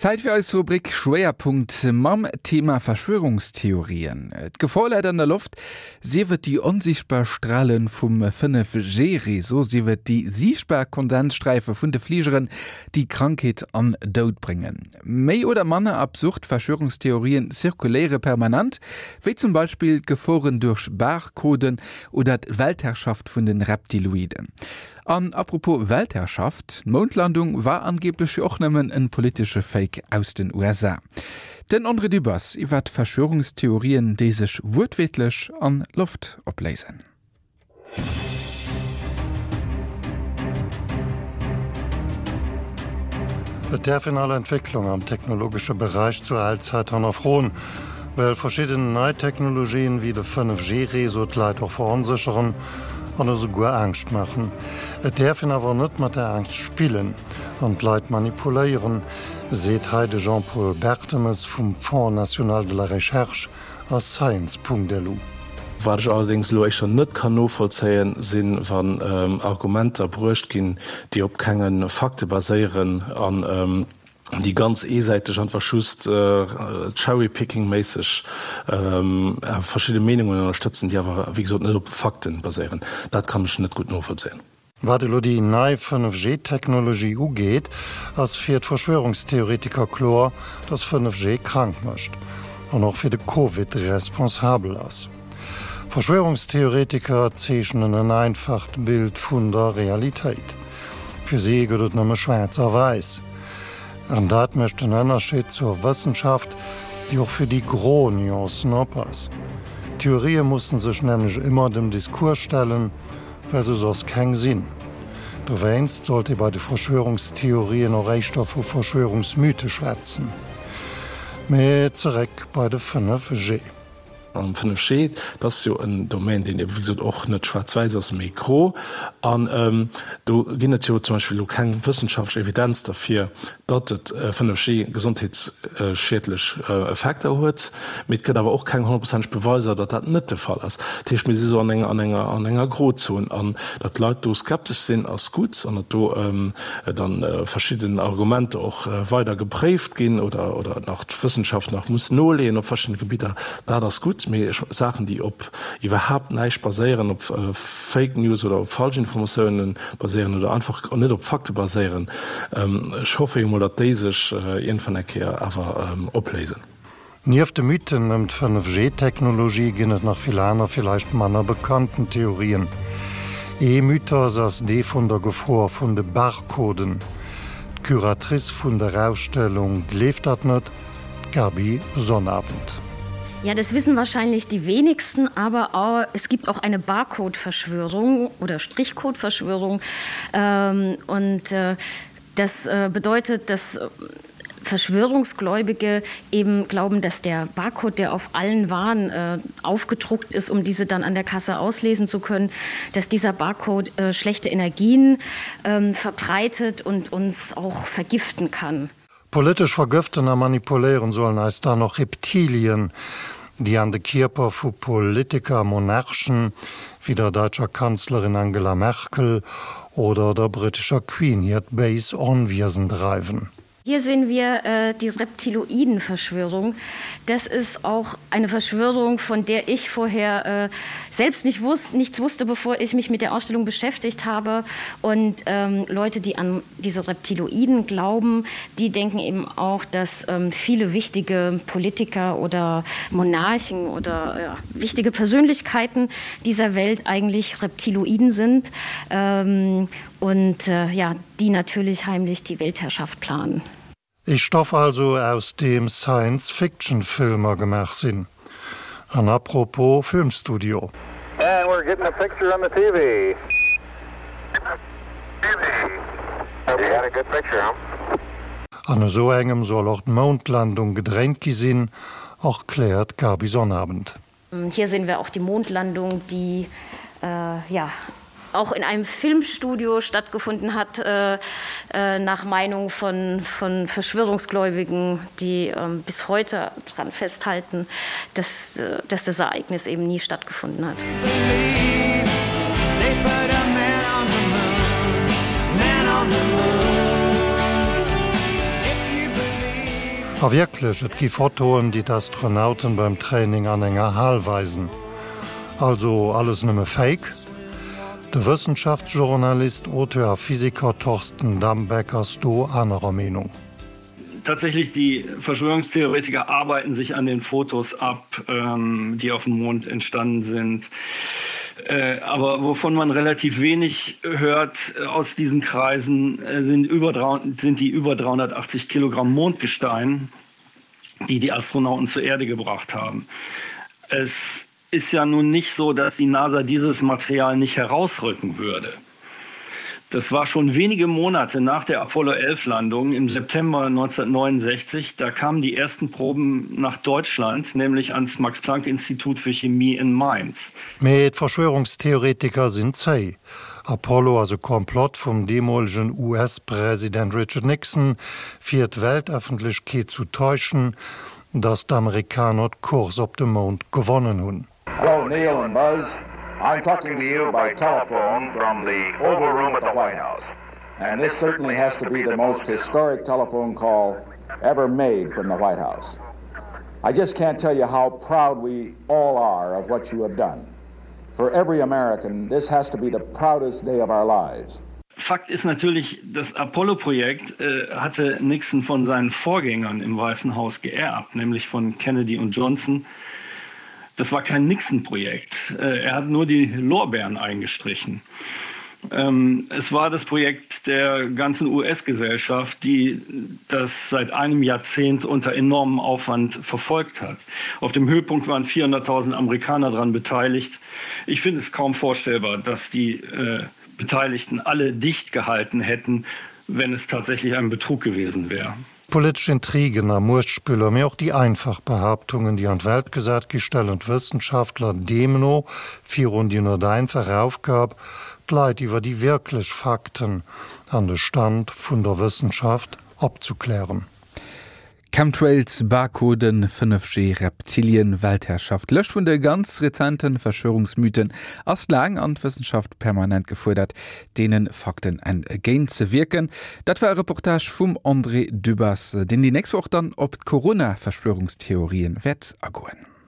Zäit fir eis Rubrik Schwéierpunkt mam Thema Verschwörungstheorien. D'Gefor läit an der Loft, sief et déi onsiichtbar Strale vum 5G-Réseau, sief et déi siichtbar Kondenssträife vun de Fligeren, déi Krankheet an Doud bréngen. Méi oder manner absurd Verschwörungstheorien zirkuléiere permanent, wéi zum Beispill d'Geforen duerch Barcoden oder d'Weltherrschaft vun de Reptiloiden. An apropos Weltherrschaft, d'Moundlandung war angeblech jo och nëmmen en politesche Fake aus den USA. Den André Dübbers iwwert Verschwörungstheorien, déi sech wuertwiertlech an Loft opléisen. Et däerf een all Entwécklung am technologesche Beräich zur Allzäit hannerfroen, well verschidden nei Technologien wéi de 5G-Réseau d'Leit och veronsécheren an esouguer Angscht maachen. Et däerf een awer net mat der Angscht spillen an d'Leit manipuléieren, seet hei de Jean-Paul Bertemes vum Fonds national de la recherche a Science.lu. Wat ech allerdéngs elo éischter net kann novollzéien, sinn, wann Argumenter bruecht ginn, déi op kenge Fakte baséieren an déi ganz eesäiteg einfach just cherry-picking-méisseg verschidde Meenungen ënnerstëtzen, déi awer, wéi gesot, net op Fakten baséieren. Dat kann ech net gutt novollzéien. Wat elo déi nei 5G-Technologie ugeet, ass fir d'Verschwörungstheoretiker kloer, dass 5G krank mécht an och fir de Covid responsabel ass. Verschwörungstheoretiker zeechnen en einfacht Bild vun der Realitéit. Fir si gëtt et nëmme schwaarz a wäiss. An dat mécht den Ënnerscheed zur Wëssenschaft, déi och fir déi gro Nuancen op ass. Theorië mussen sech nämlech ëmmer dem Discours stellen, well se soss keng sinn. Dowéinst sollt ee bei de Verschwörungstheorien och éischter vu Verschwörungsmythe schwätzen. Mee zeréck bei de 5G. An 5G, dat ass jo en Domaine, deen ebe wéi gesot och net schwaarz-wäiss ass, mee gro. An do ginn et jo zum Beispill elo keng wëssenschaftlech Evidenz derfir, datt et 5G gesondheetsschiedlech Effekter huet. Mee et gëtt awer och keng honnertprozenteg Beweiser, datt dat net de Fall ass. Dat heescht, mir si sou an enger, an enger, an enger Grozon. An datt d'Leit do skeptesch sinn, ass gutt. An datt do dann verschidden Argumenter och weider gepréift ginn oder, oder nach d'Wëssenschaft nach muss noleeën op verschiddene Gebidder, dat ass gutt. Mee Saachen, déi op iwwerhaapt näischt baséieren, op Fake News oder op Falschinformatiounen baséieren oder einfach net op Fakte baséieren, ech hoffe jo mol, datt déi sech iergendwann eng Kéier awer opléisen. Nieft de Mythen ëm d'Fënnef-G-Technologie ginn et nach vill aner, villäicht manner bekannten Theorien. Ee Mythos ass dee vun der Gefor vun de Barcoden. D'Curatrice vun der Ausstellung gleeft dat net, d'Gaby Sonnabend. Ja, das wissen wahrscheinlich die wenigsten, aber auch, es gibt auch eine Barcode-Verschwörung oder Strichcode-Verschwörung. Ähm, und äh, das äh, bedeutet, dass Verschwörungsgläubige eben glauben, dass der Barcode, der auf allen Waren äh, aufgedruckt ist, um diese dann an der Kasse auslesen zu können, dass dieser Barcode äh, schlechte Energien äh, verbreitet und uns auch vergiften kann. Politesch vergëften a manipuléieren sollen eis dann och Reptilien, déi an de Kierper vu Politiker a Monarchen, wéi der deutscher Kanzlerin Angela Merkel oder der brittescher Queen hiert béis Onwiesen dreiwen. Hier sehen wir äh, die Reptiloidenverschwörung. Das ist auch eine Verschwörung, von der ich vorher äh, selbst nicht wusste, nichts wusste, bevor ich mich mit der Ausstellung beschäftigt habe. Und ähm, Leute, die an diese Reptiloiden glauben, die denken eben auch, dass ähm, viele wichtige Politiker oder Monarchen oder ja, wichtige Persönlichkeiten dieser Welt eigentlich Reptiloiden sind ähm, und äh, ja, die natürlich heimlich die Weltherrschaft planen. Ee Stoff also aus deem Science-Fiction-Filmer gemaach sinn. An apropos Filmstudio. And we're getting a picture on the TV. An esou engem soll och d'Moundlandung gedréint gi sinn, erkläert d'Gaby Sonnabend. Hier sehen wir auch die Mondlandung, die äh, ja auch in einem Filmstudio stattgefunden hat, äh, äh, nach Meinung von, von Verschwörungsgläubigen, die äh, bis heute daran festhalten, dass, äh, dass das Ereignis eben nie stattgefunden hat. A wierklech, et gi Fotoen, déi d'Astronauten beim Training an enger Hal weisen. Also alles nëmme Fake? De Wëssenschaftsjournalist, Auteur a Physiker Thorsten Dambeck ass do anerer Meenung. Tatsächlich die Verschwörungstheoretiker arbeiten sich an den Fotos ab, ähm, die auf dem Mond entstanden sind. Äh, aber wovon man relativ wenig hört äh, aus diesen Kreisen äh, sind, über, sind die über 380 Kilogramm Mondgestein, die die Astronauten zur Erde gebracht haben. Es ist ja nun nicht so, dass die NASA dieses Material nicht herausrücken würde. Das war schon wenige Monate nach der Apollo 11 Landung im September 1969. Da kamen die ersten Proben nach Deutschland, nämlich ans Max Planck Institut für Chemie in Mainz. Mee d'Verschwörungstheoretiker sinn zéi. Apollo ass e Komplott vum deemolegen US-President Richard Nixon, fir d'Weltëffentlechkeet zu täuschen, datt d'Amerikaner d'Course op de Mound gewonnen hunn. Hello Neil and Buzz, I'm talking to you by telephone from the Oval Room at the White House. And this certainly has to be the most historic telephone call ever made from the White House. I just can't tell you how proud we all are of what you have done. For every American, this has to be the proudest day of our lives. Fakt ist natürlich, das Apollo-Projekt äh, hatte Nixon von seinen Vorgängern im Weißen Haus geerbt, nämlich von Kennedy und Johnson. Das war kein Nixon-Projekt. Äh, er hat nur die Lorbeeren eingestrichen. Ähm, es war das Projekt der ganzen US-Gesellschaft, die das seit einem Jahrzehnt unter enormem Aufwand verfolgt hat. Auf dem Höhepunkt waren 400.000 Amerikaner daran beteiligt. Ich finde es kaum vorstellbar, dass die äh, Beteiligten alle dicht gehalten hätten, wenn es tatsächlich ein Betrug gewesen wäre. Politesch Intrigen a Muechtspiller, mee och déi einfach Behaaptungen, déi an d'Welt gesat gi, stellen d'Wëssenschaftler deemno virun déi net einfach Aufgab, d'Leit iwwer déi wierklech Fakten an de Stand vun der Wëssenschaft opzuklären. Chemtrails, Barcoden, 5G, Reptilien, Weltherrschaft, D'Lëscht vun de ganz rezenten Verschwörungsmythen ass laang an d'Wëssenschaft permanent gefuerdert, deene Fakten entgéint ze wierken. Dat war e Reportage vum André Dübbers, deen déi nächst Woch dann op d'Corona-Verschwörungstheorien wäert agoen.